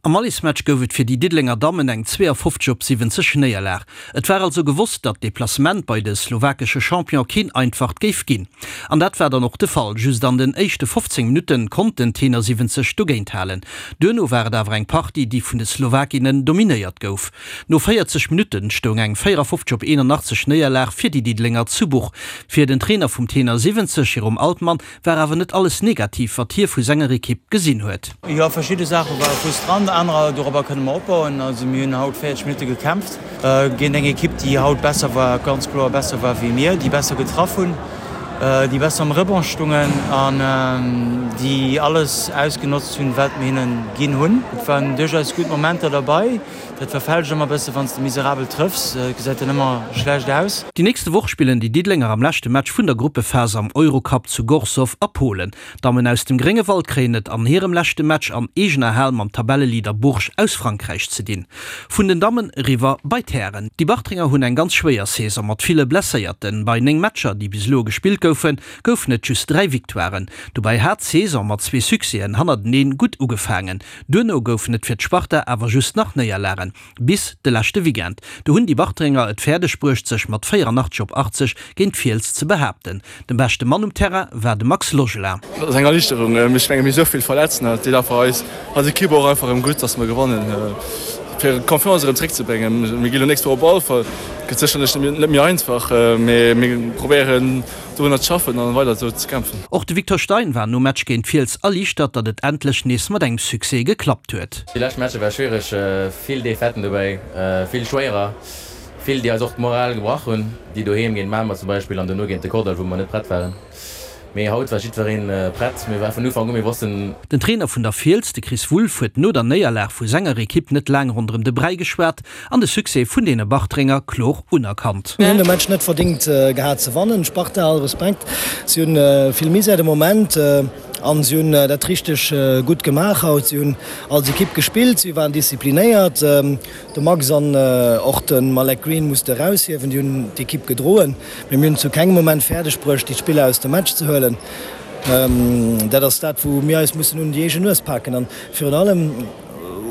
Am Allesmatch gouf et fir déi Diddelenger Dammen eng 52 op 70 Néierlag. Et war also gewosst, datt d'Deplacement bei de slowakesche Champion keen einfacht géif ginn. An dat war dann och de Fall. Just an den éischte 15 Minutte konnt den Tenor 70 dogéint halen. Duerno war et awer eng Partie, déi vun de Slowakinnen dominéiert gouf. No 40 Minutte stoung eng 54 op 81 Néierlag fir déi Diddelenger zu Buch. Fir den Trainer vum Tenor 70, Jérôme Altmann, War awer net alles negativ, wat hie vu senger Ekipp gesinn huet. Jo, verschidde Saache ware frustrant, anerer, dorobber kënne mer opbauen. Also mir hunn haut 40 Minutte gekämpft géint eng Ekipp, déi haut besser war, ganz kloer besser war wéi mir, déi besser getraff hunn, déi besser am Rebond stungen an déi alles ausgenotzt hunn, wat mir hinne ginn hunn. Et waren duerchaus gutt Momenter derbei. Dat verfälscht ëmmer bësse wann s de miserabel trëffs, et gesäit dann ëmmer schlecht aus. Déi nächste Woch spillen déi Diddelenger am leschte Match vun der Gruppephas am Eurocup zu Gorzów a Polen. D'Dammen aus dem Gréngewald kréien et an hirem leschte Match an eegener Hal mam Tabelleleader Bourges aus Frankräich ze dinn. Vun den Dammen eriwwer bei d'Hären. Déi Bartrenger hunn eng ganz schwéier Saison mat ville Blesséierten. Bei 9 Matcher, déi bis elo gespillt goufen, goufen et just 3 Victoiren. Dobäi hat d'Saison mat zwee Succèsen hannerteneen gutt ugefaangen. Duerno goufen et fir d'Sparta awer just nach Néierlagen, bis de leschte Weekend. Do hunn déi Bartrenger et fäerdeg bruecht sech mat 84 op 80 géint d'Fiels ze behaapten. Den beschte Mann um Terrain war de Max Logelin. Dat ass eng Erliichterung. Ech menge mir hu sou vill Verletzten an et deet einfach eis als Ekipp och einfach erëm gutt, datt mer gewannen, fir d'Confiance erëm zeréckzebréngen. Mir gi lo nächst Woch op Walfer, gëtt sécherlech net méi einfach, mee mir probéieren Dorunner ze schaffen an weider esou ze kämpfen. Och de Victor Stein war nom Match géint Fiels erliichtert, datt et endlech nees mat engem Succès geklappt huet. Déi lescht Matcher war schwiereg, vill Defaiten dobäi, vill schwéierer, vill déi eis och d'Moral gebrach hunn, déi doheem géint Mamer zum Beispill an dono géint de Kordall wou mer net prett waren. Mee haut war jiddwereen prett, mir ware vun Ufank u, mir wossten. Den Trainer vun der Fiels, de Chris Wulff, huet no der Néierlag vu senger Ekipp net laang ronderëm de Bräi geschwat an de Succès vun deene Bartrenger kloer unerkannt. Mir hunn de Match net verdingt gehat ze wannen. Sparta, all Respekt, si hunn vill Misär de Moment an si hunn dat richteg gutt gemaach haut. Si hunn als Ekipp gespillt, si waren disziplinéiert. De Max an och de Malek Green muss de eraushiewen, déi hunn d'Ekipp gedroen. Mee mir hunn zu kengem Moment fäerdeg bruecht, déi Spiller aus dem Match ze huelen. Dat ass dat, wou mir eis mussen un déi eegen Nues paken. An virun allem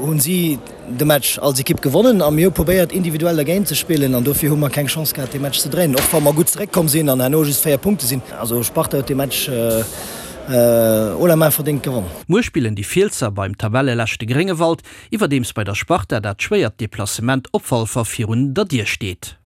hunn si de Match als Ekipp gewonnen a mir hu probéiert individuell dergéint ze spillen an dofir hu mer keng Chance gehat dee Match ze dréinen, och wa mer gutt zeréckkomm sinn an herno just 4 Punkte sinn. Also Sparta huet dee Match haut la main verdéngt gewonnen. Muer spillen déi Fielsser beim Tabelleleschte Gréngewald, iwwerdeems bei der Sparta dat schwéiert Deplacement op Walfer virun der Dier steet.